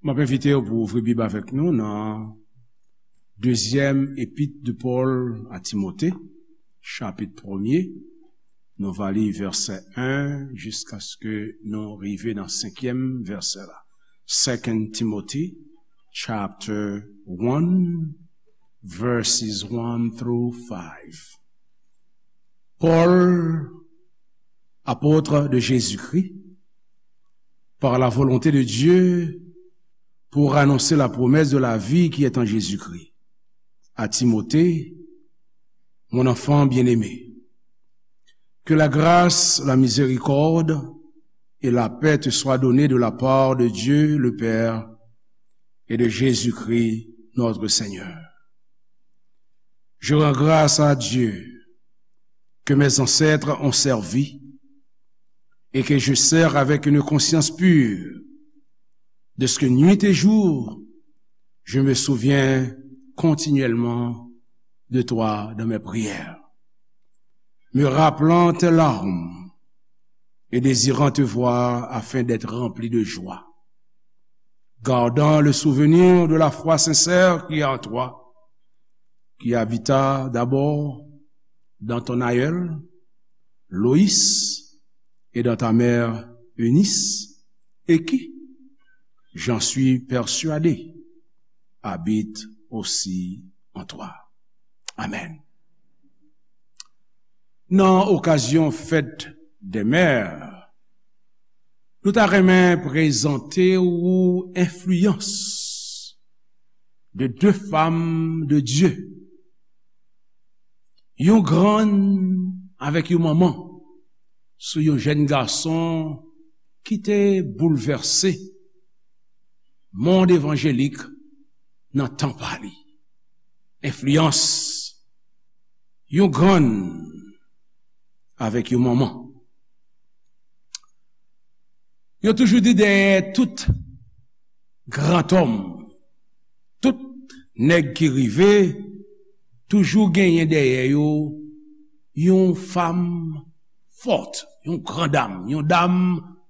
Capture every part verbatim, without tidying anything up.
M ap envite w pou w ouvri Bib avèk nou nan Dezyèm Epit de Pòl a Timote, chapit premye. Nou va li vèsè en jiskaske nou rive nan senkyèm vèsè la. Second Timothy, chapter one, verses one through five. Paul, apôtre de Jésus-Christ, par la volonté de Dieu, pour annoncer la promesse de la vie qui est en Jésus-Christ. À Timothée, mon enfant bien-aimé, que la grâce, la miséricorde et la paix te soient données de la part de Dieu le Père et de Jésus-Christ notre Seigneur. Je rends grâce à Dieu que mes ancêtres ont servi et que je sers avec une conscience pure, de ce que nuit et jour, je me souviens continuellement de toi dans mes prières, me rappelant tes larmes et désirant te voir afin d'être rempli de joie, gardant le souvenir de la foi sincère qui est en toi, qui habita d'abord dans ton aïeul, Loïs, et dans ta mère, Eunice, et qui, j'en suis persuadé, habite aussi en toi. Amen. Nan okazyon fèt dè mè, nou ta renmen prezante ou enfliyans de de fanm de Dye, yon grann avèk yon manman, sou yon jèn gason ki te boulvèse mond evanjelik nan tan pa li. Enfliyans yon grann avèk yon manman. Yo toujou di dèyè tout grantòm, tout nèg ki rive, toujou genyen dèyè yo yon fanm fòt, yon gran dam, yon dam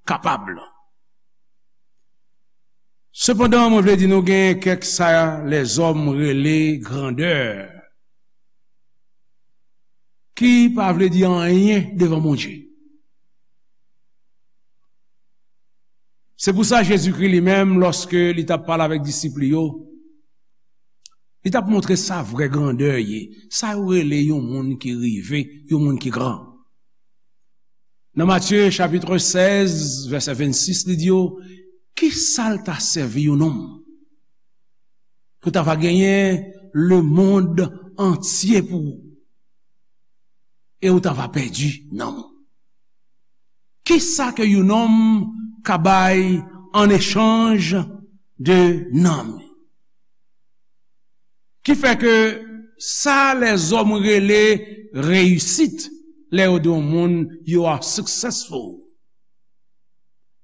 kapab. Sepandan, mwen vle di nou gen kèk sa lèzòm rele grandè, ki pa vle di anyen devan Bondye. Se pou sa Jezikri li menm, lòske li t ap pale avèk disip li yo, li t ap montre sa vrè grandè ye, sa yo rele yon moun ki rive, yon moun ki gran. Nan Matye chapit sèz, vèsè vennsis, li di yo, ki sa l ta sèvi yon nonm pou ta va genyen lemonn antye pou ou, e ou ta va pèdi nanm ou? Ki sa ke yon nonm ka bay an echanj de nanm li? Ki fè ke sa lèzòm rele reyisit, lè yo di yon moun, "You are successful."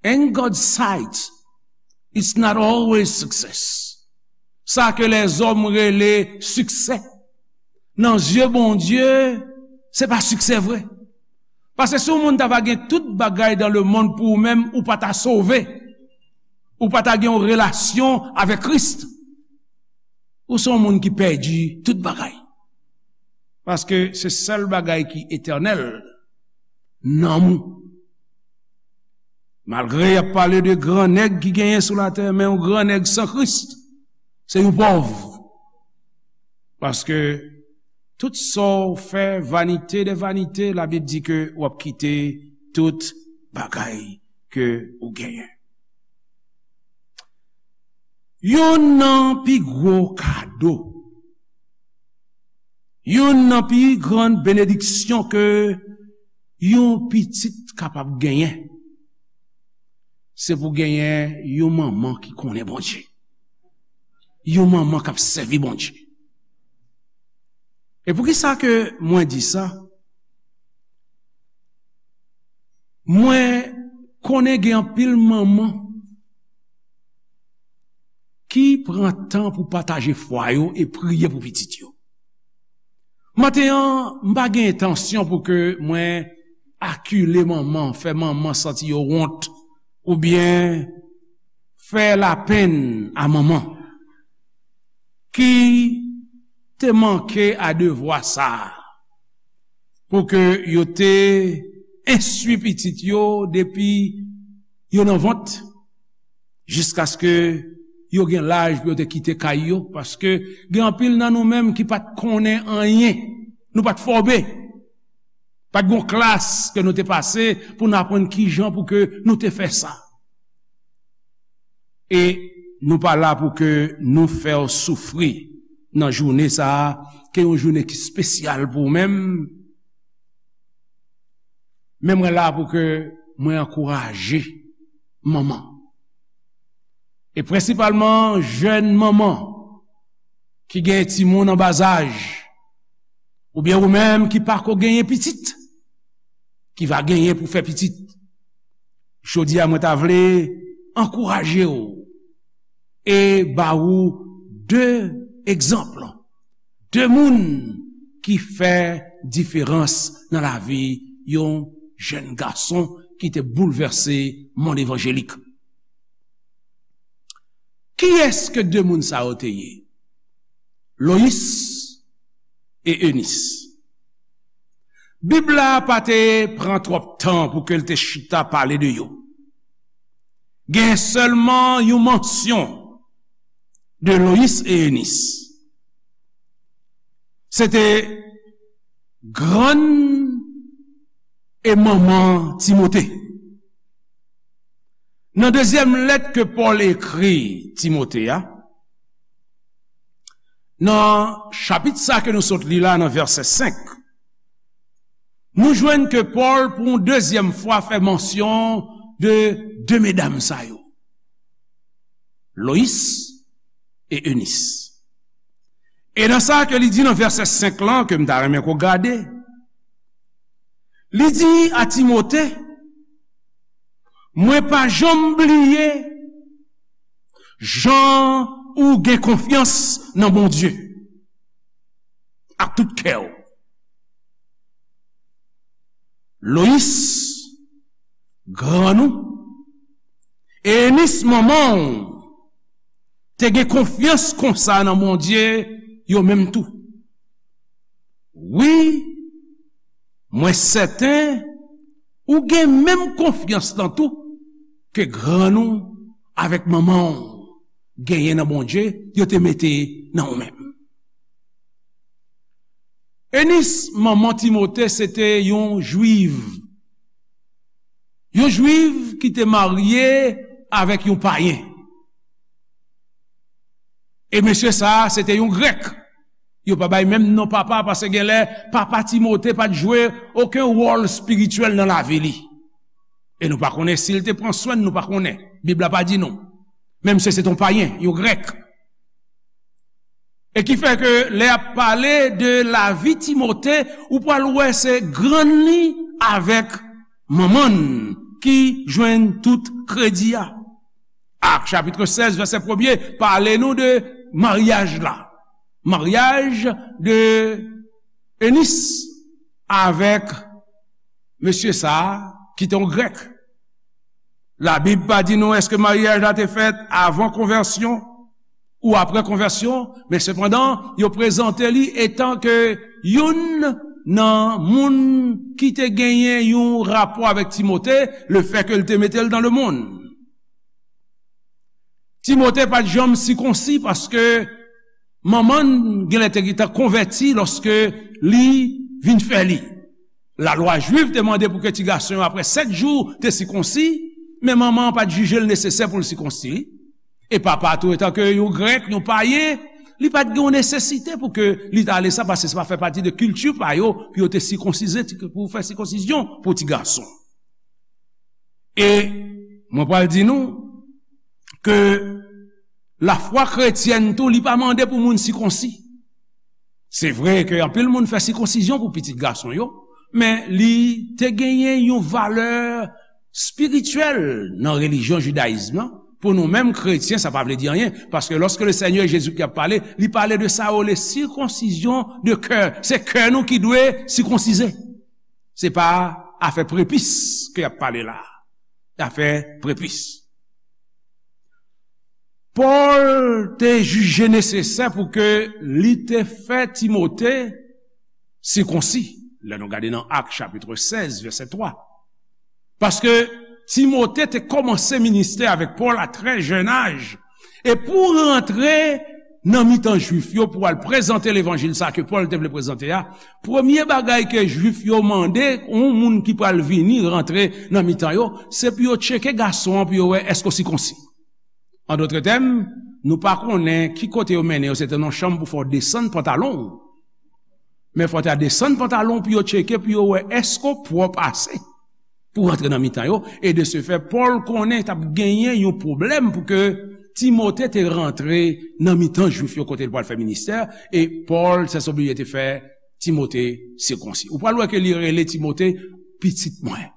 In God's sight, it's not always success. Sa ke lèzòm rele siksè, nan zye Bondye, se pa siksè vre. Paske si yon moun ta va gen tout bagay dan lemonn pou ou menm, ou pa ta sove. Ou pa ta gen yon relasyon avèk Kris. Ou se yon moun ki pèdi tout bagay. Paske se sèl bagay ki etènèl, nanm ou. Malgre y ap pale de gran nèg ki genyen sou latè, men yon gran nèg san Kris, se yon pòv. Paske tout sa w fè, vanite de vanite, Labib di ke w ap kite tout bagay ke ou genyen. Youn nan pi gwo kado, youn nan pi gran benediksyon ke yon pitit kapab genyen, se pou genyen yon manman ki konnen Bondye, yon manman k ap sèvi Bondye. E poukisa ke mwen di sa? Mwen konnen gen anpil manman ki pran tan pou pataje fwa yo e priye pou pitit yo. Maten an, m pa gen entansyon pou ke mwen akile manman, fè manman santi yo wont, oubyen fè lapenn a manman ki te manke a devwa sa a, pou ke yo te enstwi pitit yo depi yo nan vant, jiskaske yo gen laj pou yo te kite kay yo, paske gen anpil nan nou menm ki pa t konnen anyen, nou pa t fòme, pa t gon klas ke nou te pase pou n aprann kijan pou ke nou te fè sa. E nou pa la pou ke nou fè w soufri nan jounen sa a, ke yon jounen ki espesyal pou ou menm. Men mwen la pou ke mwen ankouraje manman. E prensipalman jèn manman ki gen timoun an bazaj, oubyen ou menm ki pako genyen pitit, ki va genyen pou fè pitit. Jodi a, mwen ta vle ankouraje w e ba ou de egzanp, de moun ki fè diferans nan lavi yon jèn gason ki te boulvèse monn evanjelik. Kiyès ke de moun sa yo te ye? Loyis e Enis. Bib la pa te pran twòp tan pou ke l te chita pale de yo. Gen sèlman yon mansyon de Loyis e Enis. Se te grann e manman Timote. Nan dezyèm lèt ke Pòl ekri Timote a, nan chapit sa ke nou sot li la, nan vèsè senk, nou jwenn ke Pòl, pou yon dezyèm fwa, fè mansyon de de medam sa yo, Loyis e Enis. E nan sa ke li di nan vèsè senk lan, ke m ta renmen ke w gade, li di a Timote, mwen pa janm bliye jan ou gen konfyans nan Bondye ak tout kè w. Loyis, grann ou, e Enis, manman w, te gen konfyans konsa nan Bondye, yo menm tou. Wi, mwen sèten ou gen menm konfyans lan tou ke grann ou avèk manman w genyen nan Bondye, yo te mete nan ou menm. Enis, manman Timote, se te yon jwiv. Yon jwiv ki te marye avèk yon payen. E mesye sa a, se te yon grèk. Yo pa bay menm non papa, paske genlè papa Timote pa t jwe okenn wòl espirityèl nan lavi li. E nou pa konnen si l te pran swen l, nou pa konnen. Bib la pa di nou. Menm si se te yon payen, yon grèk. E ki fè ke lè y ap pale de lavi Timote, ou pral wè se grann li avèk manman l ki jwenn tout kredi a. Ak chapit sèz, vèsè premye, pale nou de maryaj la. Maryaj de Enis avèk mesye sa a, ki te yon grèk. Labib pa di nou èske maryaj la te fèt avan konvèsyon ou apre konvèsyon, men sepandan, yo prezante li etan ke youn nan moun ki te genyen yon rapò avèk Timote, lefètke l te mete l nan lemonn. Timote pa t janm sikonsi paske manman l genlè te gentan konvèti lòske li vin fè li. Lalwa jwif te mande pou ke ti gason yo, apre sèt jou, te sikonsi, men manman an pa t jije l nesesè pou l sikonsi. E papa tou, etanke yon grèk, yon payen, li pa t gen yon nesesite pou ke li ta ale sa, paske sa pa fè pati de kilti pa yo, pou yo te sikonsize, pou fè sikonsizyon pou ti gason. E mwen pral di nou ke lafwa kretyèn tou, li pa mande pou moun sikonsi. Se vre ke anpil moun fè sikonsizyon pou pitit gason yo, men li te genyen yon valè espirityèl nan relijyon jidayizm nan. Pou nou menm kretyen, sa pa vle di anyen, paske lòske le Senyè Jezikri ap pale, li pale de sa yo rele sikonsizyon de kè. Se kè nou ki dwe sikonsize. Se pa afè prepis ke y ap pale la. Afè prepis. Pòl te jije nesesè pou ke li te fè Timote sikonsi. Lè nou gade nan Ak chapit sèz, vèsè twa. Paske Timote te kòmanse ministè avèk Pòl a trè jèn aj. E pou rantre nan mitan Jwif yo, pou al prezante levanjil sa ke Pòl te vle prezante a, premye bagay ke Jwif yo mande yon moun ki pral vini rantre nan mitan yo, se pou yo tcheke gason an, pou yo wè èske w sikonsi. An dòt tèm, nou pa konnen ki kote yo mennen yo, se te nan chanm pou fè w desann pantalon w. Men fò w ta desann pantalon w pou yo tcheke, pou yo wè èske w pwòp ase pou rantre nan mitan yo. E de se fè, Pòl konnen t ap genyen yon pwoblèm pou ke Timote te rantre nan mitan Jwif yo kote l pral fè ministè, e Pòl, se oblije te fè Timote sikonsi. Ou pral wè ke li rele Timote pitit mwen,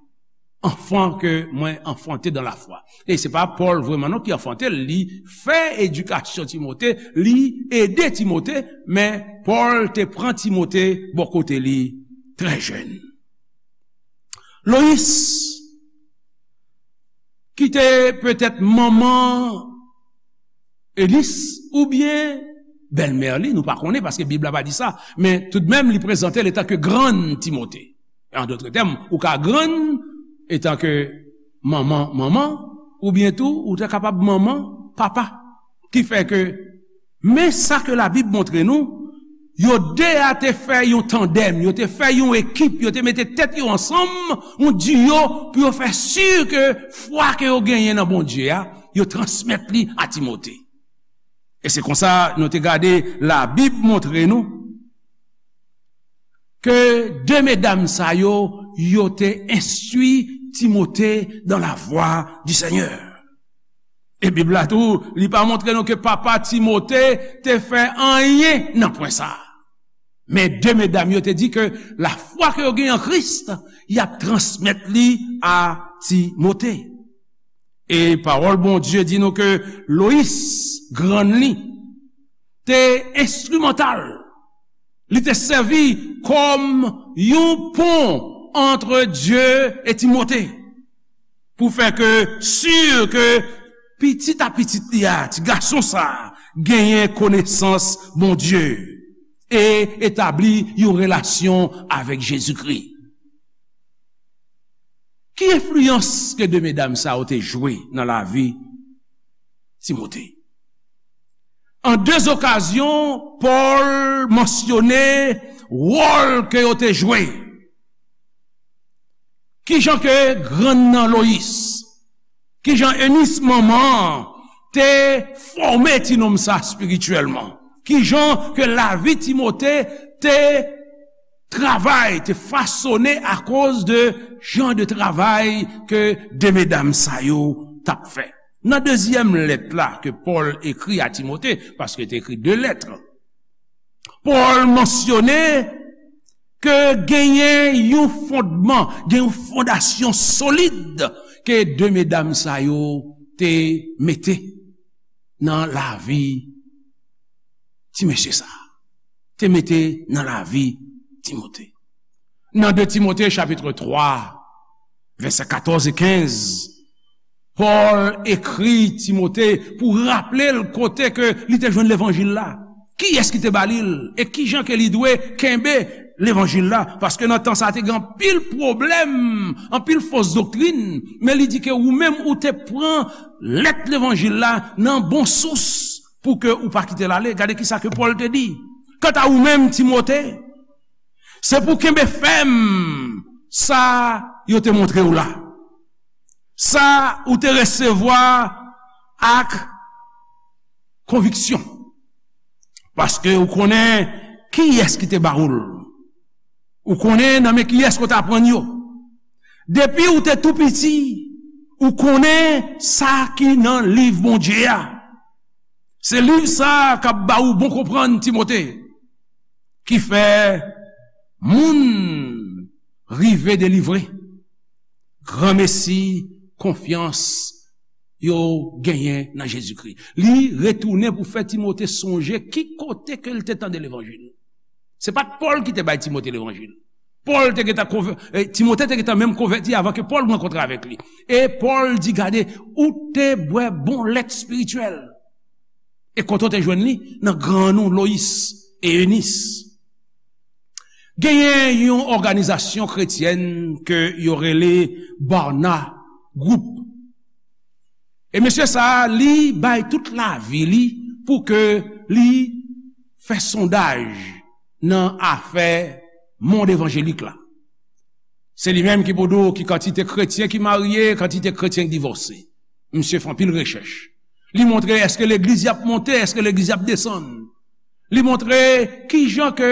anfan ke mwen anfante dan lafwa. E se pa Pòl vrèman non ki anfante l, li fè edikasyon Timote, li ede Timote, men Pòl te pran Timote bò kote li trè jèn. Loyis, ki te petèt manman Enis oubyen bèlmè li, nou pa konnen paske Bib la pa di sa, men toudmenm li prezante l etanke grann Timote. An dòt tèm, ou ka grann etanke manman, manman, oubyen tou ou te kapab manman, papa. Ki fè ke, men sa ke Labib montre nou, yo de a te fè yon tandèm, yo te fè yon ekip, yo te mete tèt yo ansanm, yon diyo, pou yo fè si ke fwa ke yo genyen nan Bondye a, yo transmèt li a Timote. E se konsa nou te gade Labib montre nou ke de medam sa yo, yo te enstwi Timote dans la voie du Seigneur. E Bib la tou, li pa montre nou ke papa Timote te fè anyen nan pwen sa a. Men de medam yo te di ke lafwa ke yo gen an Kris, y ap transmèt li a Timote. E pawòl Bondye di nou ke Loyis, grann li, te enstrimantal. Li te sèvi kòm yon pon ant Dye e Timote, pou fè ke, si ke pitit a pitit li a, ti gason sa a, genyen konesans Bondye e etabli yon relasyon avèk Jezikri. Ki enfliyans ke de medam sa yo te jwe nan lavi Timote? An de okazyon, Pòl mansyone wòl ke yo te jwe. Kijan ke grann nan Loyis, kijan Enis manman an te fòme ti nonm sa espirityèlman? Kijan ke lavi Timote te travay, te fasone akoz de jan de travay ke de medam sa yo t ap fè? Nan dezyèm lèt la ke Pòl ekri a Timote, paske te ekri de lèt, Pòl mansyone ke genyen yon fondman, gen yon fondasyon solid ke de medam sa yo te mete nan lavi ti mesye sa a, te mete nan lavi Timote. Nan de Timote chapit twa, vèsè katòz e kenz, Pòl ekri Timote pou raple l kote ke li te jwenn levanjil la, kiyès ki te ba li l, e kijan ke li dwe kenbe levanjil la. Paske nan tan sa a te gen anpil pwoblèm, anpil fos doktrin, men li di ke ou menm ou te pran lèt levanjil la nan bon sous pou ke ou pa kite l ale. Gade kisa ke Pòl te di. Kanta ou menm, Timote, se pou kenbe fèm sa yo te montre w la, sa ou te resevwa ak konviksyon, paske ou konnen kiyès ki te ba ou l, ou konnen nan men kiyès ke w te aprann yo. Depi ou te tou piti, ou konnen sa ki nan liv Bondye a. Se liv sa a k ap ba ou bon konprann, Timote, ki fè moun rive delivre. Granmesi, konfyans yo genyen nan Jezikri. Li retounen pou fè Timote sonje ki kote ke l te tande levanjil. Se pa t Pòl ki te bay Timote levanjil. Pòl te gentan konvè-, eh, Timote te gentan menm konvèti avan ke Pòl rankontre avèk li. E Pòl di, gade, ou te bwè bon lèt espirityèl. E kote w te jwenn li? Nan grann ou, Loyis e Enis. Genyen yon òganizasyon kretyèn ke yo rele Barna Group. E mesye sa a, li bay tout lavi li pou ke li fè sondaj nan afè mond evanjelik la. Se li menm ki pou di w ki kantite kretyen ki marye, kantite kretyen ki divòse. Misye fè anpil rechèch. Li montre èske legliz y ap monte, èske legliz y ap desann. Li montre kijan ke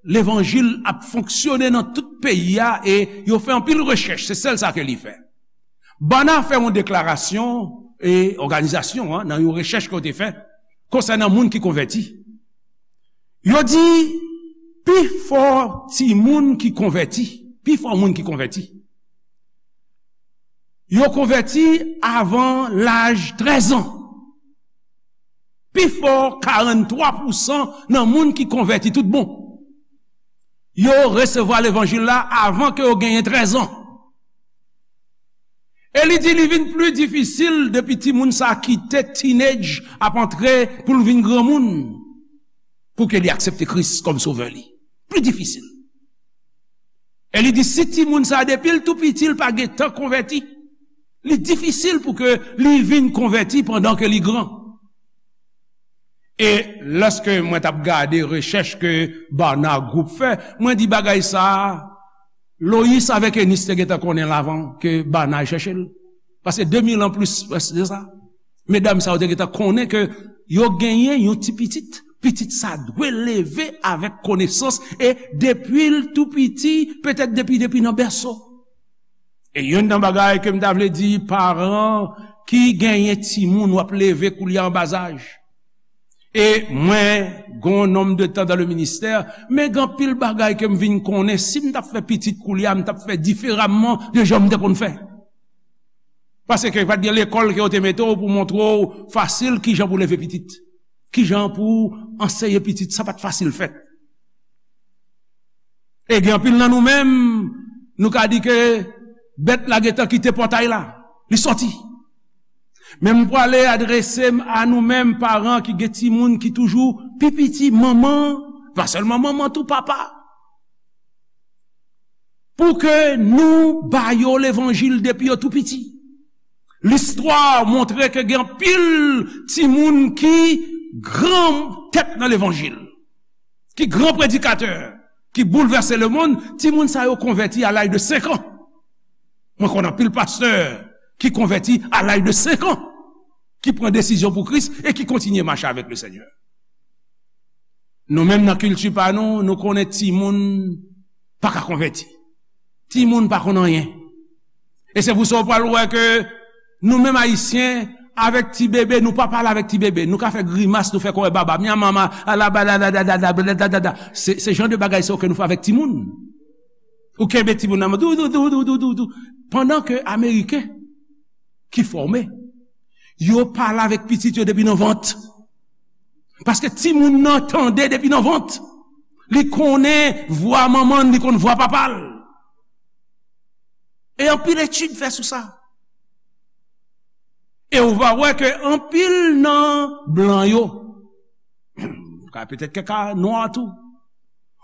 levanjil ap fonksyone nan tout peyi a, e yo fè anpil rechèch, se sèl sa ke li fè. Barna fè yon deklarasyon, e òganizasyon an, nan yon rechèch ke yo te fè konsènan moun ki konvèti. Yo di, pifò timoun ki konvèti, pifò moun ki konvèti, yo konvèti avan laj trèz an. Pifò, karanntwa pousan nan moun ki konvèti tout bon, yo resevwa levanjil la avan ke yo genyen trèz an. E li di li vin pli difisil depi timoun sa kite teenage, ap antre pou l vin granmoun, pou ke li aksepte Kris kòm sovè li. Pli difisil. E li di si timoun sa depi l tou piti l pa gentan konvèti, li difisil pou ke li vin konvèti pandan ke li gran. E lòske mwen t ap gade rechèch ke Barna Group fè, mwen di bagay sa a, Loyis avèk Enis te gentan konnen l avan ke Barna al chèche l. Paske de mil an plis prèske de sa. Medam sa yo te gentan konnen ke yo genyen yon ti pitit. Pitit sa dwe leve avèk konesans e depi l tou piti, petèt depi, depi nan bèso. E youn nan bagay ke m ta vle di paran ki genyen timoun w ap leve koulye a an bazaj. E mwen, gon nonm de tan dan le ministè, men gen anpil bagay ke m vin konnen, si m t ap fè pitit koulye a, m t ap fè diferaman de jan m te konn fè. Paske pa t gen lekòl ke yo te mete w pou montre w fasil kijan pou leve pitit. Kijan pou anseye pitit, sa pa t fasil fèt. E gen anpil nan nou menm, nou ka di ke bèt la gentan kite pòtay la, li sòti. Men m prale adrese m a nou menm paran ki gen timoun ki toujou pi piti, manman, pa sèlman manman, tou papa. Pou ke nou ba yo levanjil depi yo tou piti. Listwa montre ke gen anpil timoun ki gran tèt nan levanjil, ki gran predikatè, ki boulvèse lemonn, timoun sa yo konvèti a laj de senk an. Mwen konn anpil pastè ki konvèti a laj de senk an, ki pran desizyon pou Kris e ki kontinye mache avèk Lesenyè. Nou menm nan kilti pa nou, nou konnen timoun pa ka konvèti. Timoun pa konn anyen. E se pou sa w pral wè ke nou menm Ayisyen, avèk ti bebe, nou pa pale avèk ti bebe. Nou ka fè grimas, nou fè kòrè baba. Mya mama, alabadadadadadadadada. Se, se jan de bagay sa yo ke nou fè avèk timoun. Ou kenbe timoun nan men, dou, dou, dou. Pandan ke Ameriken ki fòme, yo pale avèk pitit yo depi nan vant. Paske timoun nan tande depi nan vant. Li konnen vwa manman l, li konn vwa papa l. E anpil etid fè sou sa. E ou va wè ke anpil nan blan yo, ka petèt kèk ka nwa tou,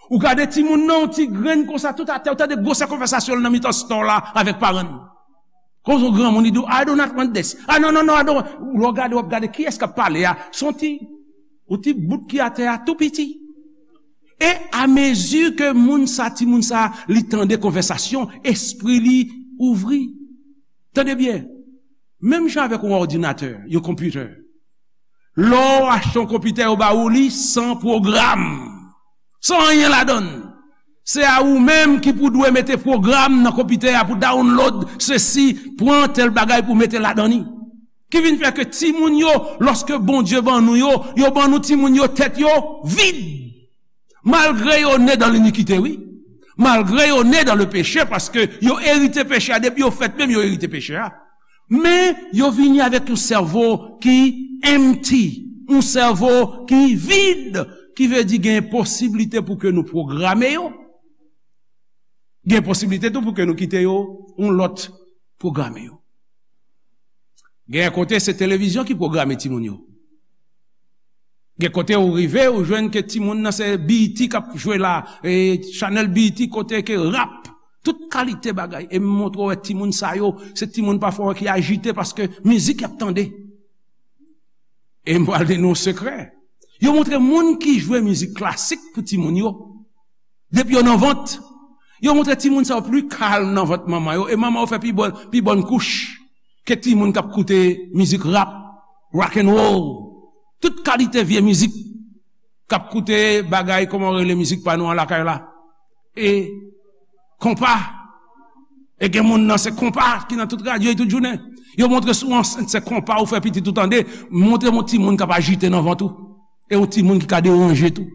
ou gade timoun nan, yon ti grenn konsa, tout atè, ou tande gwosè konvèsasyon l nan mitan store la avèk paran l. Konsa yon granmoun, li di w, "I do not want this. Ah, non, non, non, I don't want." Lè w gade, w ap gade kiyès k ap pale a. Se yon ti, yon ti bout ki atè a, tou piti. E amezi ke moun sa, timoun sa, li tande konvèsasyon, espri li ouvri. Tande byen. Menm jan avèk yon òdinatè, yon konpitè. Lè w achte yon konpitè, yo ba ou li san pwogram. San anyen ladan l. Se a ou menm ki pou dwe mete pwogram nan konpitè a pou download sesi, pran tèl bagay pou mete ladan li. Ki vin fè ke timoun yo, lòske Bondye ban nou yo, yo ban nou timoun yo, tèt yo vid. Malgre yo ne dan linikite, wi. Malgre yo ne dan le peche, paske yo erite peche a, depi yo fèt menm, yo erite peche a. Men, yo vini avèk yon sèvo ki empty, yon sèvo ki vid, ki vle di gen posiblite pou ke nou pwograme yo. Gen posiblite tou pou ke nou kite yo, yon lòt pwograme yo. Gen kote se televizyon ki pwograme timoun yo. Gen kote ou rive, ou jwenn ke timoun nan se B E T k ap jwe la, e chanèl B E T kote ke rap, tout kalite bagay. E m montre w wè timoun sa yo, se timoun pafwa ki ajite paske mizik y ap tande. E m pral di nou yon sekrè. Yo montre moun ki jwe mizik klasik pou timoun yo. Depi yo nan vant, yo montre timoun sa yo pli kalm nan vant manman yo. E manman yo fè pi bòn, pi bòn kouch ke timoun k ap koute mizik rap, rock and roll, tout kalite vye mizik, k ap koute bagay, kòman yo rele mizik pa nou an lakay la? E konpa. E gen moun nan se konpa ki nan tout radyo e tout jounen. Yo montre sou ansent se konpa ou fè pitit ou tande, montre yon timoun k ap ajite nan vant ou. E yon timoun ki ka deranje tou.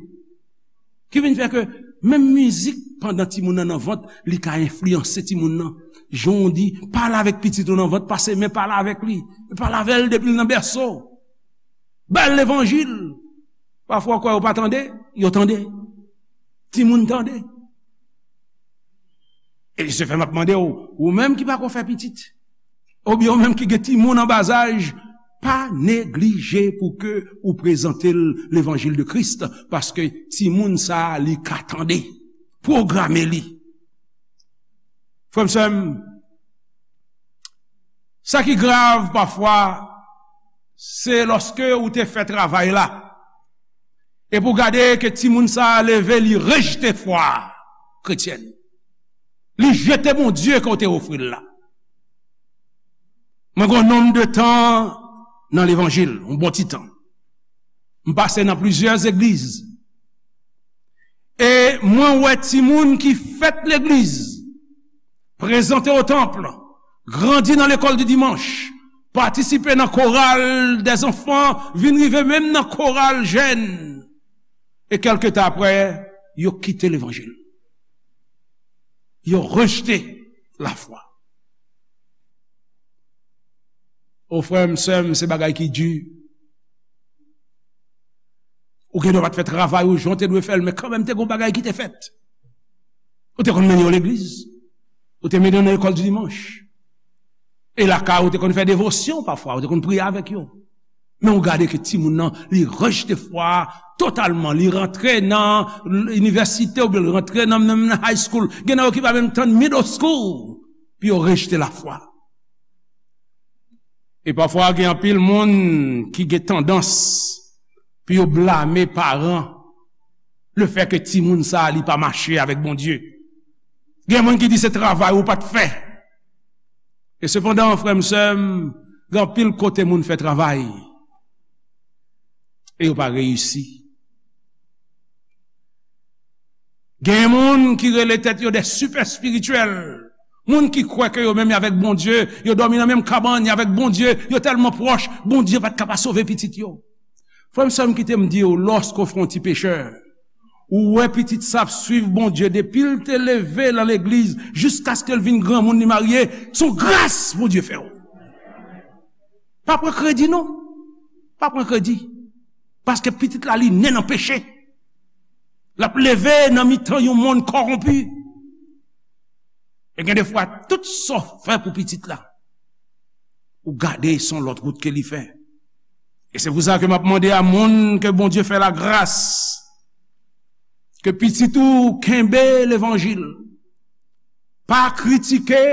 Ki vin fè ke menm mizik pandan timoun nan nan vant, li ka enfliyanse timoun nan. Jan w di, pale avèk pitit ou nan vant, pase men pale avèk li. Pale avè l depi l nan bèso. Ba l levanjil. Pafwa w kwè yo pa tande, yo tande. Timoun tande. E se fè m ap mande w, ou menm ki pako fè pitit, oubyen ou menm ki gen timoun an bazaj, pa neglije pou ke ou prezante l levanjil de Kris, paske timoun sa a, li ka tande. Pwograme li. Frè m, sè m, sa ki grav pafwa, se lòske ou te fè travay la, epi w gade ke timoun sa a leve, li rejte fwa kretyèn. Li jete Bondye ke w te ofri l la. Mwen gen yon nonm de tan nan levanjil, yon bon ti tan. M pase nan plizyè legliz. E mwen wè timoun ki fèt legliz, prezante o tanp, grandi nan lekòl di dimanch, patisipe nan koral dèzanfan, vin rive menm nan koral jèn. E kèlke tan apre, yo kite levanjil. Yo rejte lafwa. O frè m, sè m, se bagay ki di. Ou gen dwa pa t fè travay ou jan w te dwe fè l, men kanmenm te gen yon bagay ki te fèt. Ou te konn mennen yo legliz. Ou te mennen yo nan lekòl di dimanch. E lakay ou te konn fè devosyon pafwa, ou te konn priye avèk yo. Men ou gade ke timoun nan, li rejte fwa a totalman. Li rantre nan inivèsite oubyen li rantre nan, nan, nan high school. Gen nan yo ki pa menm tann middle school pou yo rejte lafwa. E pafwa gen anpil moun ki gen tandans pou yo blame paran lefètke timoun sa a li pa mache avèk Bondye. Gen moun ki di se travay ou pa t fè. E sepandan, frè m, sè m, gen anpil kote moun fè travay e yo pa reyisi. Gen moun ki rele tèt yo de sipè espirityèl. Moun ki kwè ke yo menm avèk Bondye, yo dòmi nan menm kabann avèk Bondye, yo tèlman pwòch, Bondye pa t ka pa sove pitit yo. Frè m, sè m, kite m di w, lòske w fè yon ti pechè, ou wè pitit sa ap swiv Bondye depi l te leve nan legliz jiskaske l vin granmoun li marye, se yon gras Bondye fè w. Pa pran kredi non. Pa pran kredi. Paske pitit la li ne nan peche. L ap leve nan mitan yon monn kòwonpi. E gen defwa tout sa w fè pou pitit la, ou gade se yon lòt wout ke li fè. E se pou sa ke m ap mande a moun ke Bondye fè lagras, ke pitit ou kenbe levanjil. Pa kritike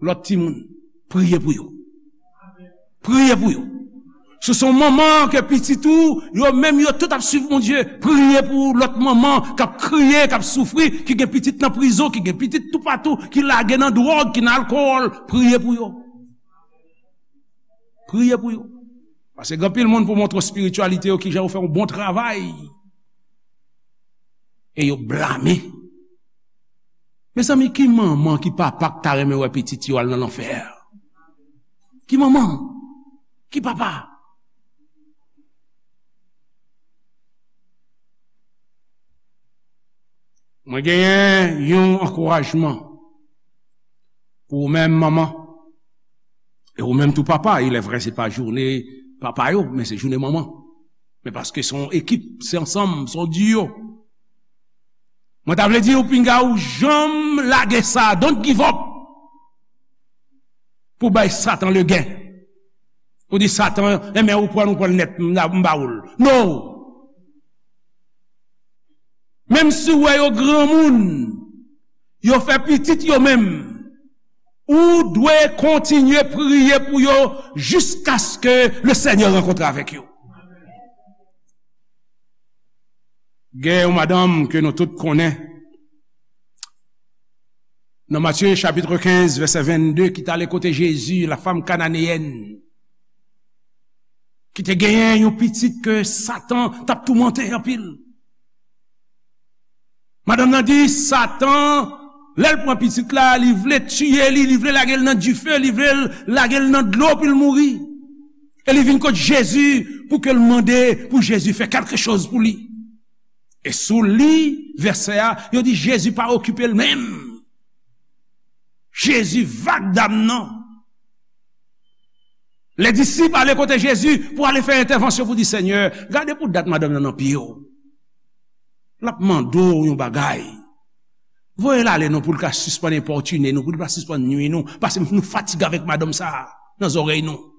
lòt timoun. Priye pou yo. Priye pou yo. Si se yon manman ke pitit ou, yo menm yo tout ap swiv Bondye, priye pou lòt manman k ap kriye, k ap soufri, ki gen pitit nan prizon, ki gen pitit toupatou, ki lage nan dwòg, ki nan alkòl, priye pou yo. Priye pou yo. Paske gen anpil moun pou montre w espirityalite yo, kijan yo fè yon bon travay. E yo blame. Mezanmi, ki manman, ki papa k ta renmen wè pitit yo al nan lanfè? Ki manman? Ki papa? Mwen genyen yon ankourajman pou ou menm, manman. E ou menm tou, papa. Il est vrai, se pa jounen papa yo, men se jounen manman. Men paske se yon ekip, se ansanm, se yon duo. Mwen ta vle di ou, pinga ou janm lage sa, don't give up. Pou bay Satan legen. Ou di Satan, enben ou pran, ou pran nèt, m ba ou l. No! Menm si w wè yo granmoun, yo fè pitit yo menm, ou dwe kontinye priye pou yo jiskaske le Senyè rankontre avèk yo. Gen yon madanm ke nou tout konnen, nan Matye chapit kenz, vèsè vennde, ki t ale kote Jezi, la femme cananéenne, ki te genyen yon pitit ke Satan t ap toumante anpil. Madanm nan di, Satan, lè l pran pitit la, li vle tiye li, li vle lage l nan dife, li vle lage l nan dlo pou l mouri. E li vin kot Jezi pou ke l mande pou Jezi fè kèlke choz pou li. E si w li vèsè a, yo di Jezi pa okipe l menm. Jezi vag dam nan. Lè disip ale kote Jezi pou ale fè entèvansyon pou di, Senyè, gade pou dat madanm nan nan pye w. L ap mande w yon bagay. Voye l ale non pou l ka sispann enpòtine nou, pou l pa sispann nwi nou, paske nou fatige avèk madanm sa a nan zòrèy nou.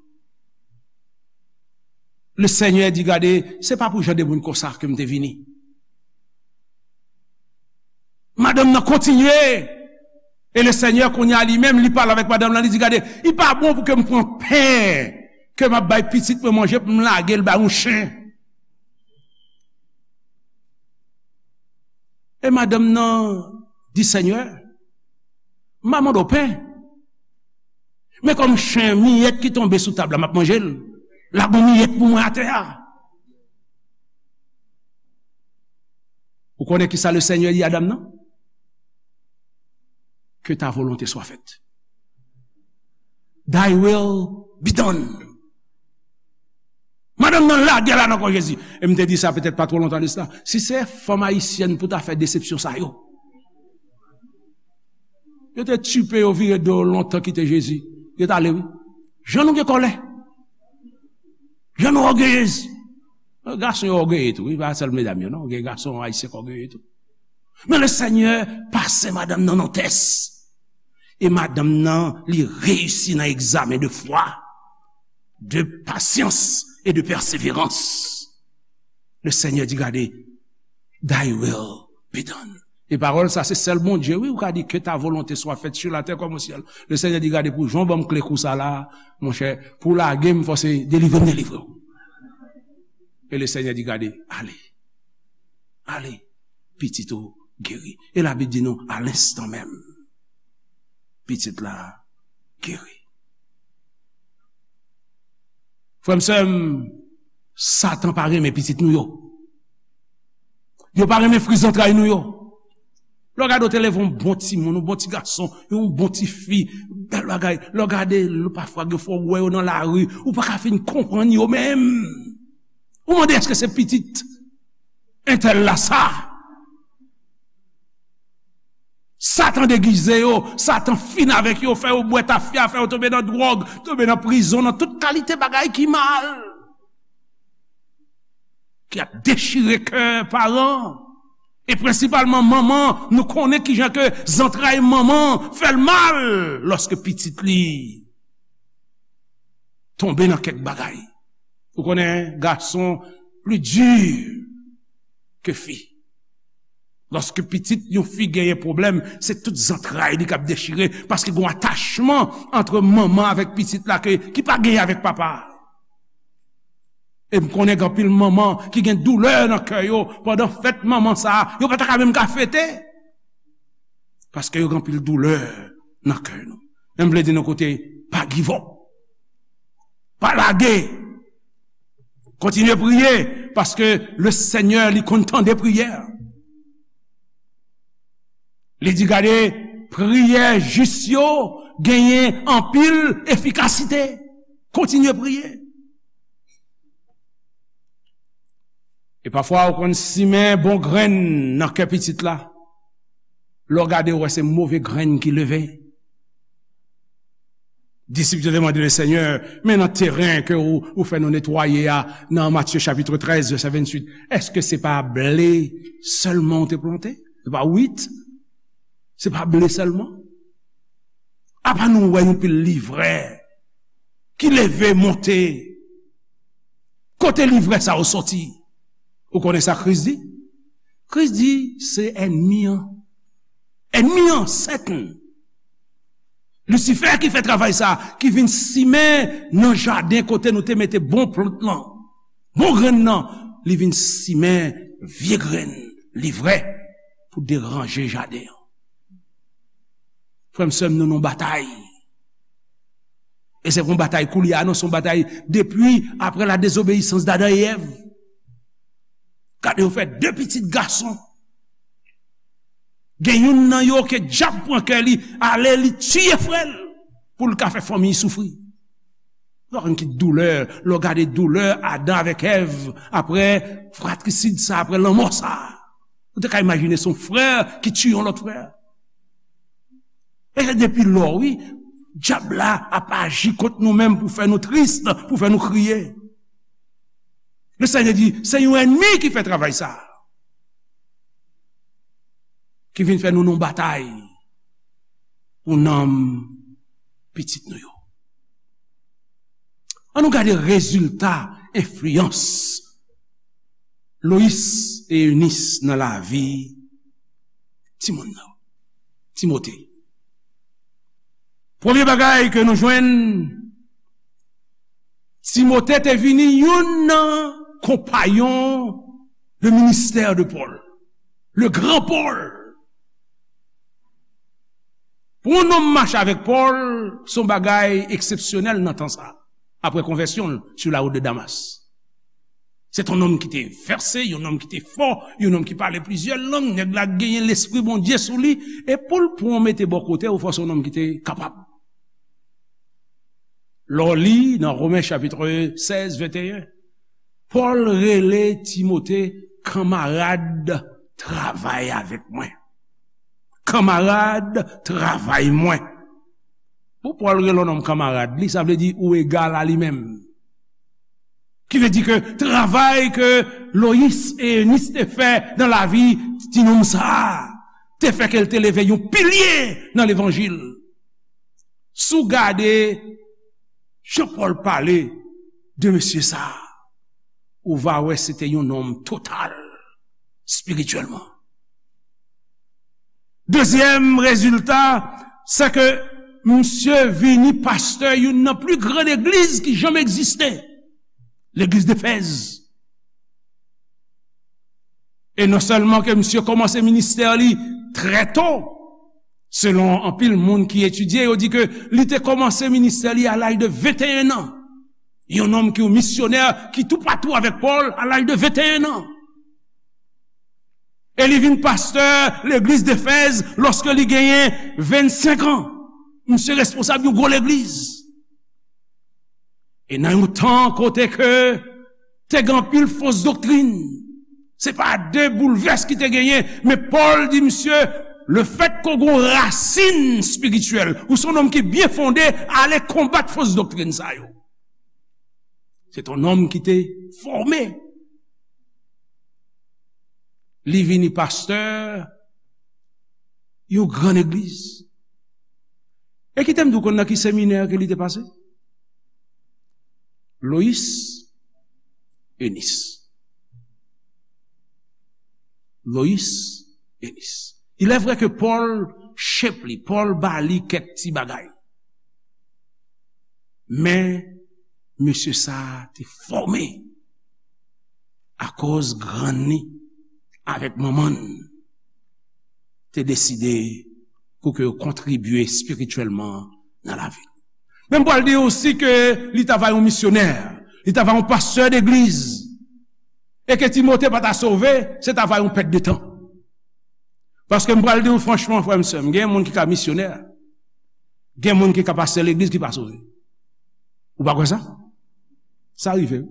Le Senyè di, gade, se pa pou jan de moun konsa ke m te vini. Madanm nan kontinye. E le Senyè kounye a li menm, li pale avèk madanm nan, li di, gade, li pa bon pou ke m pran pen ke m ap bay pitit mwen manje, pou m lage l bay yon chen. E madanm nan di, Senyè, m pa mande w pen. Men kòm chen, miyèt ki tonbe sou tab la, m ap manje l. Lage yon miyèt pou mwen atè a. Ou konnen ki sa le Senyè di a dam nan? Que ta volonté soit faite. Thy will be done. Madanm nan lage l a nan kò Jezi. E m te di sa petèt pa twò lontan de sa. Si se fanm ayisyèn pou ta fè desepsyon sa yo, yo te tipe yo vire do yo lontan kite Jezi. Yo t ale, wi. Jan nou gen kòlè. Jan nou ògeyez. Gason yo ògeye tou, wi, pa sèl medam yo, non. Gen gason ayisyen k ògeye tou. Men le Senyè pase madanm nan nan tès. E madanm nan, li reyisi nan egzamen de fwa, de pasyans e de pèseverans. Le Senyè di, gade, thy will be done. E pawòl sa, se sèl Bondye, wi, ou ka di, que ta volonté soit faite sur la terre comme au ciel. Le Senyè di, gade, pou jan w ban m kle kou sa la, monchè, pou w lage m, fò se delivre m delivre w. E le Senyè di, gade, ale. Ale, pitit ou geri. E Labib di nou, a lenstan menm, pitit la geri. Frè m, sè m, Satan pa renmen pitit nou yo. Yo pa renmen fri zantray nou yo. Lè w gade, w te leve yon bon timoun, yon bon ti gason, yon bon ti fi, bèl bagay. Lè w gade, lè pafwa gen fwa w wè yo nan lari, ou pa ka fin konprann yo menm. Ou mande, èske se pitit entèl la sa? Satan degize yo, Satan fin avèk yo, fè yo bwè tafya, fè yo tonbe nan dwòg, tonbe nan prizon, nan tout kalite bagay ki mal, ki ap dechire kè paran. E prensipalman manman, nou konnen kijan ke zantray manman fè l mal lòske pitit li tonbe nan kèk bagay. Ou konnen gason pli di ke fi. Lòske pitit yon fi genyen pwoblèm, se tout zantray li k ap dechire, paske gen yon atachman ant manman avèk pitit la ke, ki pa genyen avèk papa. E m konnen gen anpil manman ki gen doulè nan kè yo pandan fèt manman sa a, yo pa ta ka menm ka fete. Paske yo gen anpil doulè nan kè nou. Men m vle di nou kote, pa give up. Pa lage. Kontinye priye, paske le Senyè, li konn tande priyè. Li di, gade, priyè jis yo genyen anpil efikasite. Kontinye priye. E pafwa, ou konn simen bon grenn nan kè pitit la. Lè w gade, ou wè se move grenn ki leve. Disip yo te mande le Senyè, men nan teren ke ou, ou fè nou netwaye a, nan Matye chapit trèz, vèsè venntuit, èske se pa ble sèlman ou te plante? Se pa wit? Se pa ble sèlman? Apa nou wè yon pil livrè ki leve, monte. Kote livrè sa yo soti? Ou konnen sa Kris di? Kris di, se ènmi an. Ènmi an, Satan. Lisifè ki fè travay sa, ki vin simen nan jaden kote nou te mete bon plant lan, bon grenn nan, li vin simen vye grenn, livrè, pou deranje jaden an. Frè m, sè m, nou nan batay. E se pa yon batay koulye a, non, se yon batay depi apre la désobéissance d'Adam et Èv. Gade, yo fè de pitit gason. Gen youn nan yo ke dyab pran kè li, ale li tiye frè l pou l ka fè fanmi soufri. Ou pa konn ki doulè, lè w gade doulè Adan avèk Èv, apre fratrisid sa, apre lanmò sa. Ou te ka imajine se yon frè ki tiye yon lòt frè. E se depi lò, wi, dyab la ap aji kont nou menm pou fè nou tris, pou fè nou kriye. Le Senyè di, se yon ènmi ki fè travay sa, ki vin fè nou nan batay pou nanm pitit nou yo. Ann nou gade rezilta enfliyans Loyis e Enis nan lavi timoun nan, Timote. Premye bagay ke nou jwenn, Timote te vini youn nan konpayon de ministè de Pòl, le gran Pòl. Pou yon nonm mache avèk Pòl, se yon bagay eksepsyonèl nan tan sa, apre konvèsyon l sou la wout de Damas. Se t yon nonm ki te vèse, yon nonm ki te fò, yon nonm ki pale plizyè lang, nèg la genyen lespri Bondye sou li, e pou l pran w mete bò kote w, fò se yon nonm ki te kapab. Lè w li nan Women chapit sèz, venteyen, Pòl rele Timote kanmarad travay avèk mwen. Kanmarad travay mwen. Pou Pòl rele yon nonm kanmarad li, sa vle di ou egal a li menm. Ki vle di ke travay ke Loyis e Enis te fè nan lavi ti nonm sa a, te fè ke l te leve yon pilye nan levanjil. Si w gade jan Pòl pale de mesye sa a, ou va wè se te yon nonm total espirityèlman. Dezyèm rezilta, se ke misye vini pastè youn nan pli gran legliz ki janm egziste, legliz Efèz. E non sèlman ke misye kòmanse ministè li trè to, selon anpil moun ki etidye, yo di ke li te kòmanse ministè li a laj de venteyen an. Yon nonm ki yon misyonè ki toupatou avèk Pòl a laj de venteyen an. E li vin pastè legliz Efèz lòske li genyen vennsenk an. Misye responsab yon gwo legliz. E nan yon tan kote ke te gen anpil fos doktrin, se pa de boulvès ki te genyen, men Pòl di misye, lefètke w gen yon rasin espirityèl, ou se yon nonm ki byen fonde, ale konbat fos doktrin sa yo. Se t yon nonm ki te fòme. Li vini pastè yon gran legliz. E kite m di w konn nan ki seminè ke li te pase? Loyis Enis. Loyis Enis. Il est vrai que Pòl shape li, Pòl ba li kèk ti bagay. Men, mesye sa a te fòme akoz grann li avèk manman l te deside pou ke yo kontribye espirityèlman nan lavi l. Men m pral di w osi ke li ta va yon misyonè, li ta va yon pastè degliz, e ke Timote pa ta sove, se ta va yon pèt de tan. Paske m pral di w franchman, frè m, sè m, gen moun ki ka misyonè, gen moun ki ka pastè legliz ki pa sove. Ou pa kwè sa? Sa rive, wi.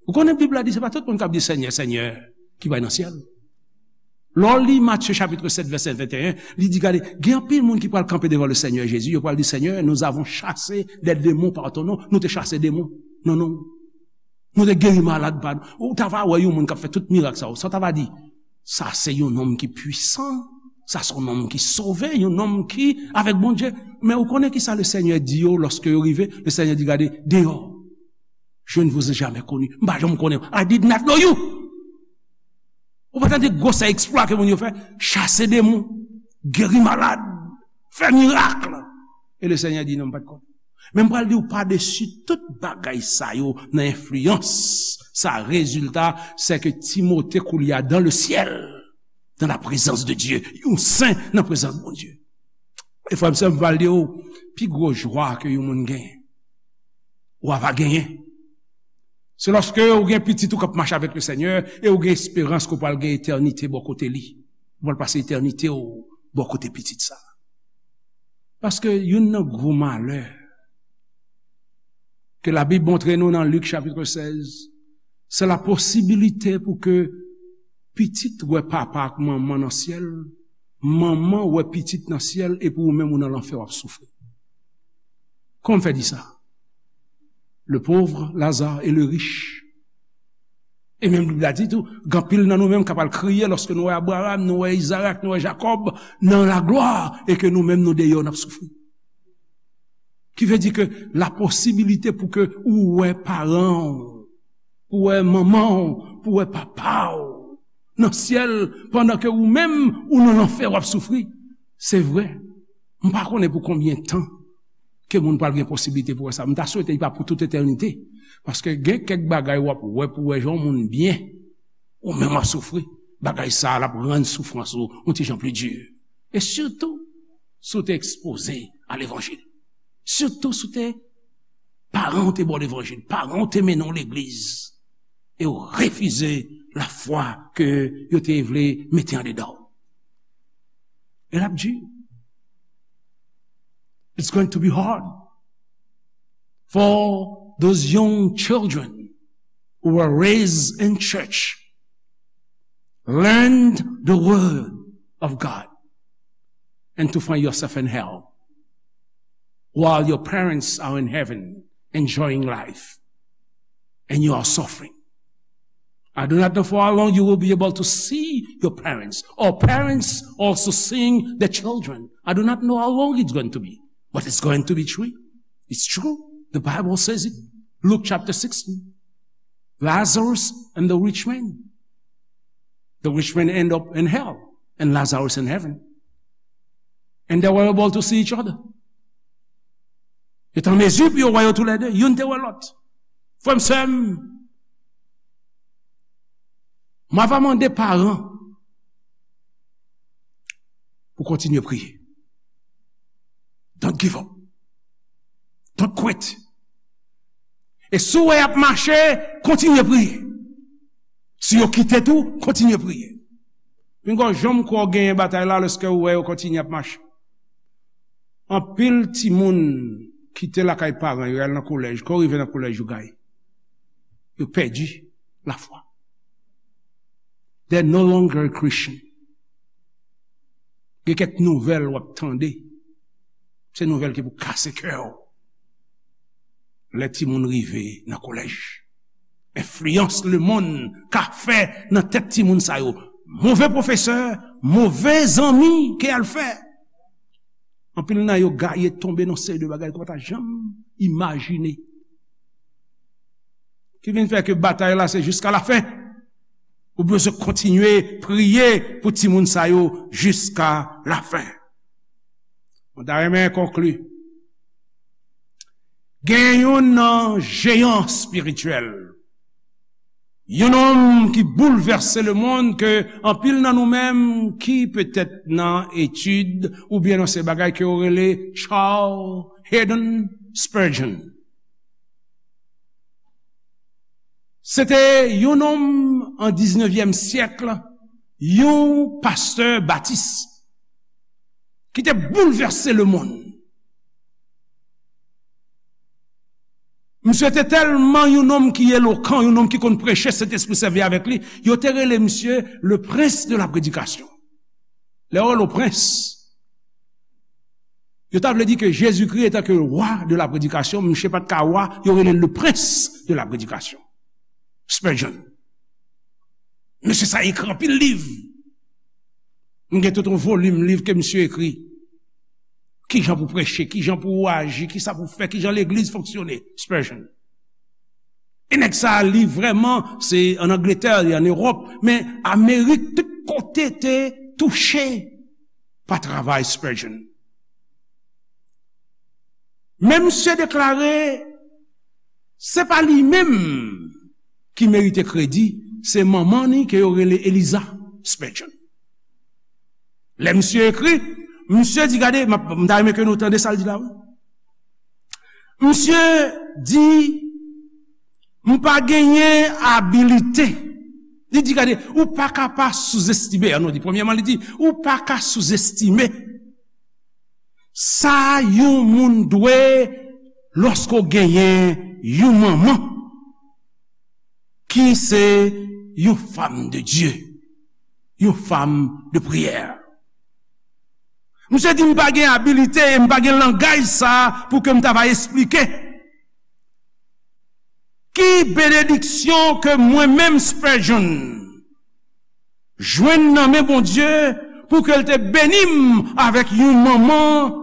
Ou konnen Bib la di se pa tout moun k ap di Senyè, Senyè ki pral nan syèl. Lè w li Matye chapit sèt, vèsè venteyen, li di, gade, gen anpil moun ki pral kanpe devan le Senyè Jezi, yo pral di, Senyè, nous avons chassé des démons par ton nom. Nou te chase demon nan non w. Nou te geri malad pa nou. Ou ta va wè yon moun k ap fè tout mirak sa yo. Sa w ta va di, sa se yon nonm ki pwisan. Sa se yon nonm ki sove, yon nonm ki avèk Bondye. Men ou konnen ki sa le Senyè di yo lòske yo rive? Le Senyè di, gade, deyò, je ne vous ai jamais connu. M pa janm konnen. I did not know you. Ou pa tande gwosè eksplwa ke moun yo fè? Chase demon, geri malad, fè mirak. E le Senyè di, non, m pa t konnen. Men m pral di w padesi tout bagay sa yo nan enfliyans. Sa rezilta, se ke Timote koulye a dans le ciel, dans la présence de Dieu. Yon sen nan prezans Bondye. E frè m, sè m, m pral di w, pi gwo jwa ke yon moun genyen, ou a va genyen, se lòske ou gen pitit ou k ap mache avèk le Senyè e ou gen esperans ke w pral gen etènite bò kote li. Ou pral pase etènite w bò kote pitit sa. Paske youn nan gwo malè ke Labib montre nou nan Lik chapit sèz, se la posibilite pou ke pitit wè papa ak manman nan syèl, manman wè pitit nan syèl, epi ou menm ou nan lanfè w ap soufri. Kòman m fè di sa? Le pauvre, Lazare et le riche. E menm Bib la di tou, gen anpil nan nou menm k ap al kriye lòske nou wè Abraram, nou wè Izarak, nou wè Jakòb nan laglwa, e ke nou menm nou deyò, n ap soufri. Ki vle di ke la posibilite pou ke ou wè paran w, pou wè manman w, pou wè papa w nan syèl, pandan ke ou menm ou nan lanfè w ap soufri. Se vre. M pa konnen pou konbyen tan ke moun pral gen posiblite pou wè sa. M ta swete li pa pou tout etènite. Paske gen kèk bagay w ap wè pou wè jan yon moun byen, ou menm w ap soufri. Bagay sa a, l ap rann soufrans ou yon ti jan pli di. E sitou, si w te ekspoze a levanjil. Sitou si w te, paran w te ba w levanjil, paran w te mennen w legliz, e w refize lafwa ke yo te vle mete andedan w. E l ap di, it's going to be hard for those young children who were raised in church, learned the word of God, and to find yourself in hell while your parents are in heaven enjoying life and you are suffering. I do not know for how long you will be able to see your parents, or parents also seeing the children. I do not know how long it's going to be, but it's going to be true. It's true. The Bible says it. Luke chapter sixteen. Lazarus and the rich man. The rich man end up in hell and Lazarus in heaven. And they were able to see each other. Yo te an mezi pou yo wè yo toulède. Youn te wè lòt. Frè m, sè m, m ava mande paran pou kontinye priye. Don't give up. Don't quit. E si w wè y ap mache, kontinye priye. Si yo kite tou, kontinye priye. Pinga w janm kwè w genyen batay la lèske w wè yo kontinye ap mache. Anpil timoun kite lakay paran yo, y al nan kolèj. Kan yo rive nan kolèj, yo gaye. Yo pèdi lafwa. They're no longer a Christian. Gen kèk nouvèl w ap tande. Se nouvèl ki pou kase kè w. Lè timoun rive nan kolèj, enfliyans lemonn ka fè nan tèt timoun sa yo. Move pwofesè, move zanmi ke y al fè. Anpil nan yo gaye tonbe nan seri de bagay ke w pa ta janm imajine. Ki vin fè ke batay la se jiska lafen. Ou bezwen kontinye priye pou timoun sa yo jiska lafen. Mwen ta renmen konkli. Gen youn nan jeyan espirityèl, yon nonm ki boulvèse lemonn ke anpil nan nou menm ki petèt nan etid oubyen nan se bagay ke yo rele Charles Haddon Spurgeon. Se te yon nonm an diznevyèm syèk, yon pastè batis ki te boulvèse lemonn. Misye te tèlman yon nonm ki elokan, yon nonm ki konn preche, Sentespri sèvi avèk li. Yo te rele misye le prince de la prédication. Lè yo rele w prens, yo ta vle di ke Jezikri etan ke wa de la predikasyon, misye pa t ka wa, yo rele l le prince de la prédication. Spurgeon. Mesye sa ekri anpil liv. M gen tout yon volim liv ke misye ekri. Kijan pou preche, kijan pou aji, kisa pou fè, kijan legliz fonksyone. Spurgeon. E nèg sa a, li vrèman, se ann Angletè, li ann Ewòp, men Amerik, tout kote te touche pa travay Spurgeon. Men misye deklare, se pa li menm ki merite kredi, se manman ni ke yo rele Eliza Spurgeon. Lè misye ekri, misye di, gade, m ap, m ta renmen ke nou tande sa l di la, wi. Misye di, m pa genyen abilite. Li di, gade, ou pa ka pa souzestime, an nou di, premyèman, li di, ou pa ka souzestime sa yon moun dwe lòske w genyen yon manman ki se yon fanm de Dye, yon fanm de priyè. Misye di m pa gen abilite e m pa gen langaj sa pou ke m ta va esplike ki benediksyon ke mwen menm Spurgeon jwenn nan men Bondye pou ke l te beni m avèk yon manman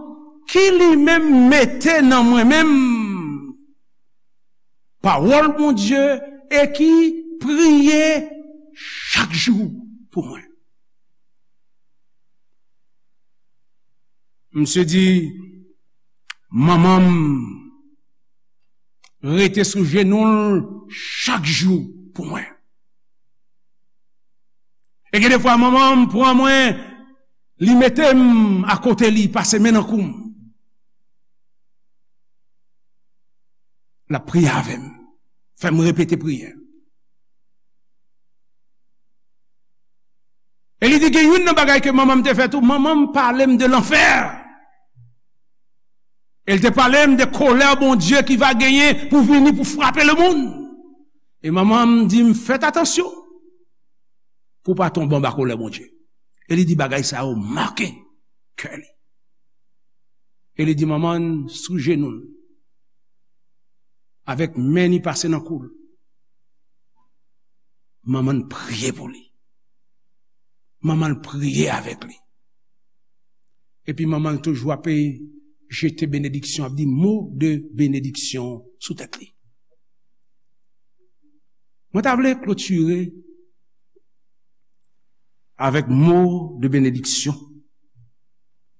ki li menm mete nan mwen menm pawòl Bondye e ki priye chak jou pou mwen. Misye di, manman m rete sou jenou l chak jou pou mwen. E gen defwa manman m pran mwen, li mete m akote li, pase men nan kou m. L ap priye avè m, fè m repete priyè. E li di gen youn nan bagay ke manman m te fè tou, manman m pale m de lanfè. E l te pale m de kolè Bondye ki va genyen pou vini pou frape lemonn. E manman m di m, fèt atansyon pou w pa tonbe anba kolè Bondye. E li di bagay sa yo make kè li. E li di manman l sou jenou l, avèk men li pase nan kou l. Manman l priye pou li. Manman l priye avèk li. Epi manman l toujou ape jete benediksyon, ap di mo de benediksyon sou tèt li. Mwen ta vle klotire avèk mo de benediksyon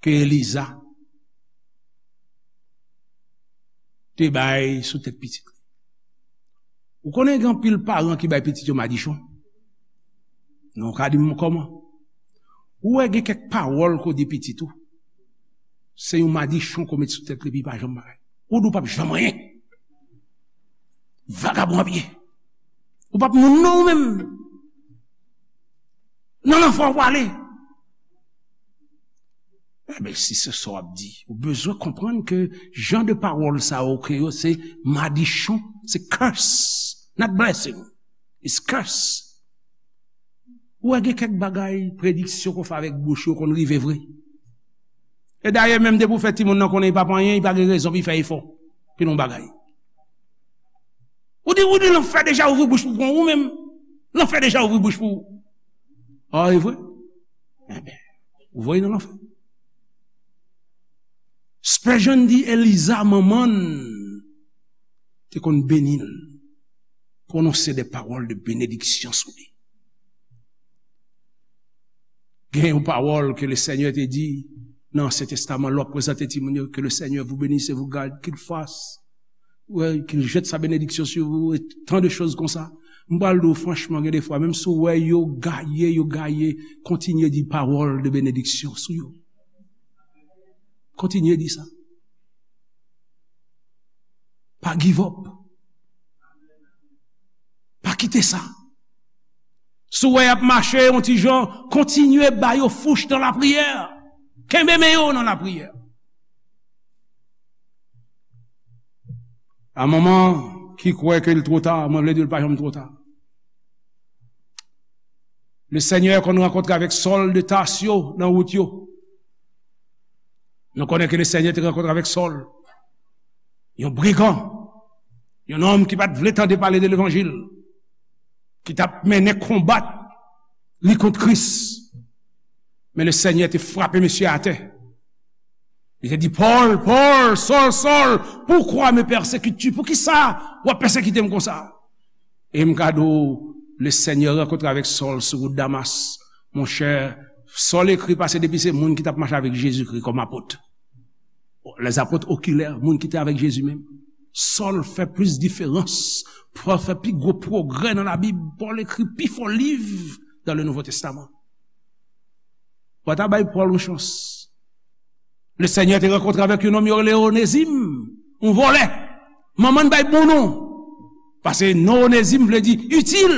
ke Eliza te bay sou tèt pitit li. Ou konnen gen anpil paran ki bay pitit yo madichon? Non, w ka di m kòman? Ou wè gen kèk pawòl ke w di pitit ou, se yon madichon ke w met sou tèt li epi li pa janm bagay. Ou di w p ap janm anyen. Vagabon ap ye. Ou p ap moun non ou menm. Nan lanfè w prale. Enben, si se sa w ap di, ou bezwen konprann ke jan de pawòl sa yo ke yo se madichon, se curse, not blessing, it's curse. Ou wè gen kèk bagay, prediksyon ke w fè avèk bouch yo konn rive vre. E dayè, menm depi w fè timoun nan konnen li p ap anyen, li pa gen rezon pou l fè efò pou l yon bagay. Ou di, ou di lanfè deja ouvri bouch pou pran ou menm. Lanfè deja ouvri bouch pou ou. A, e vre? Enben, ou voye nan lanfè. Spurgeon di Eliza, manman l, te konn beni l, pwononse de pawòl de benediksyon sou li. Gen yon pawòl ke Lesenyè te di nan Ansyen Testaman, lè w ap prezante timoun yo, que le Seigneur vous bénisse et vous garde, qu'il fasse, ouais, qu'il jette sa bénédiction sur vous, et tant de choses konsa. M pral di w franchman, gen defwa, menm si w wè yo gaye, yo gaye, kontinye di pawòl de benediksyon sou yo. Kontinye di sa. Pa give up. Pa kite sa. Si w wè y ap mache yon ti jan, kontinye ba yo fouch nan lapriyè. Kenbe men yo nan lapriyè. A manman ki kwè ke l twò ta, mwen vle di w l pa janm twò ta. Lesenyè konn rankontre avèk Sòl de Tasyo nan wout yo. Nou konnen ke Lesenyè te rankontre avèk Sòl, yon brigan, yon nonm ki pa t vle tande pale de levanjil, ki t ap mennen konba li kont Kris. Men Lesenyè te frape mesye atè. Li te di, Pòl, Pòl, Sòl, Sòl, pourquoi me persécutes-tu? Poukisa w ap pèsekite m konsa? E m ka di w, le Senyè rankontre avèk Sòl sou wout Damas. Monchè, Sòl ekri pase depi se moun ki t ap mache avèk Jezikri kòm apot. Lèzapot okilè, moun ki te avèk Jezi menm. Sòl fè plis diferans. Pòl fè pi gwo pwogrè nan Labib. Pòl ekri pi fò liv dans le Nouveau Testament. Pòl ta bay Pòl yon chans. Le Senyè te rankontre avèk yon nonm yo rele Onezim, yon vòlè. Manman l bay bon non. Paske non Onezim vle di itil.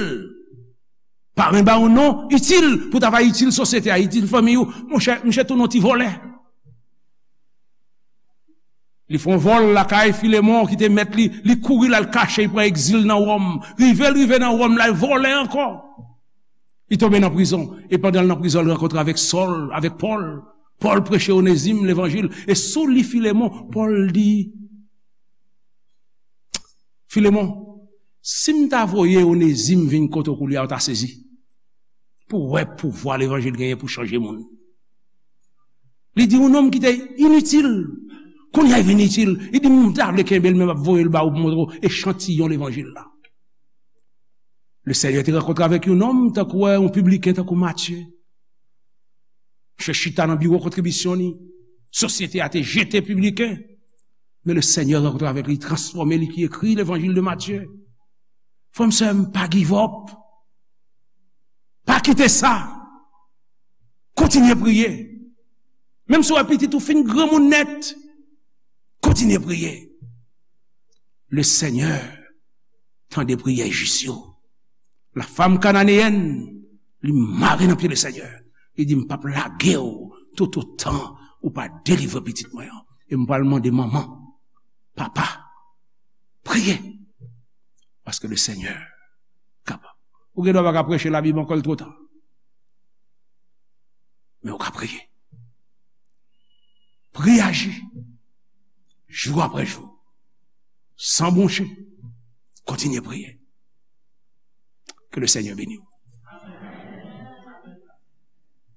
Paran ba yon non itil pou ta va itil sosyete a, itil fanmi ou. Monchè, misye tounen yon ti vòlè. Li fè yon vòl lakay Filemon ki te mèt li, li kouri l al kache, li pran egzil nan Wòm. Rive l rive nan Wòm la, l vòlè ankò. Li tonbe nan prizon. E pandan l nan prizon, l rankontre avèk Sòl, avèk Pòl. Pòl preche Onezim levanjil. E sou li Filemon, Pòl di, Filemon, si m ta voye Onezim vin kote w koulye a, w ta sezi. Pou w wè pouvwa levanjil genyen pou chanje moun. Li di yon nonm ki te initil, kounye a vin itil. Li di, m ta vle kenbe l, men m ap voye l ba ou pou montre w echantiyon levanjil la. Le Senyè te rankontre avèk yon nonm, tankou wè, yon pibliken, tankou Matye. Misye chita nan biwo kontribisyon li. Sosyete a te jete pibliken. Men le Senyè rankontre avèk li, transfòme li, ki ekri levanjil de Matye. Frè m, sè m, pa give up. Pa kite sa. Kontinye priye. Menm si w wè pitit ou fin granmoun nèt, kontinye priye. Le Senyè tande priyè jis yo. La femme cananéenne, li mare nan pye le Senyè. Li di, m p ap lage w tout otan ou pa delivre pitit mwen an. E m pral mande manman, papa, priye. Paske le Senyè kapab. Ou gen dwa pa ka preche Labib ankò, l twò ta. Men ou ka priye. Priye aji. Jou apre jou. San bwonche. Kontinye priye. Ke le Senyè beni w.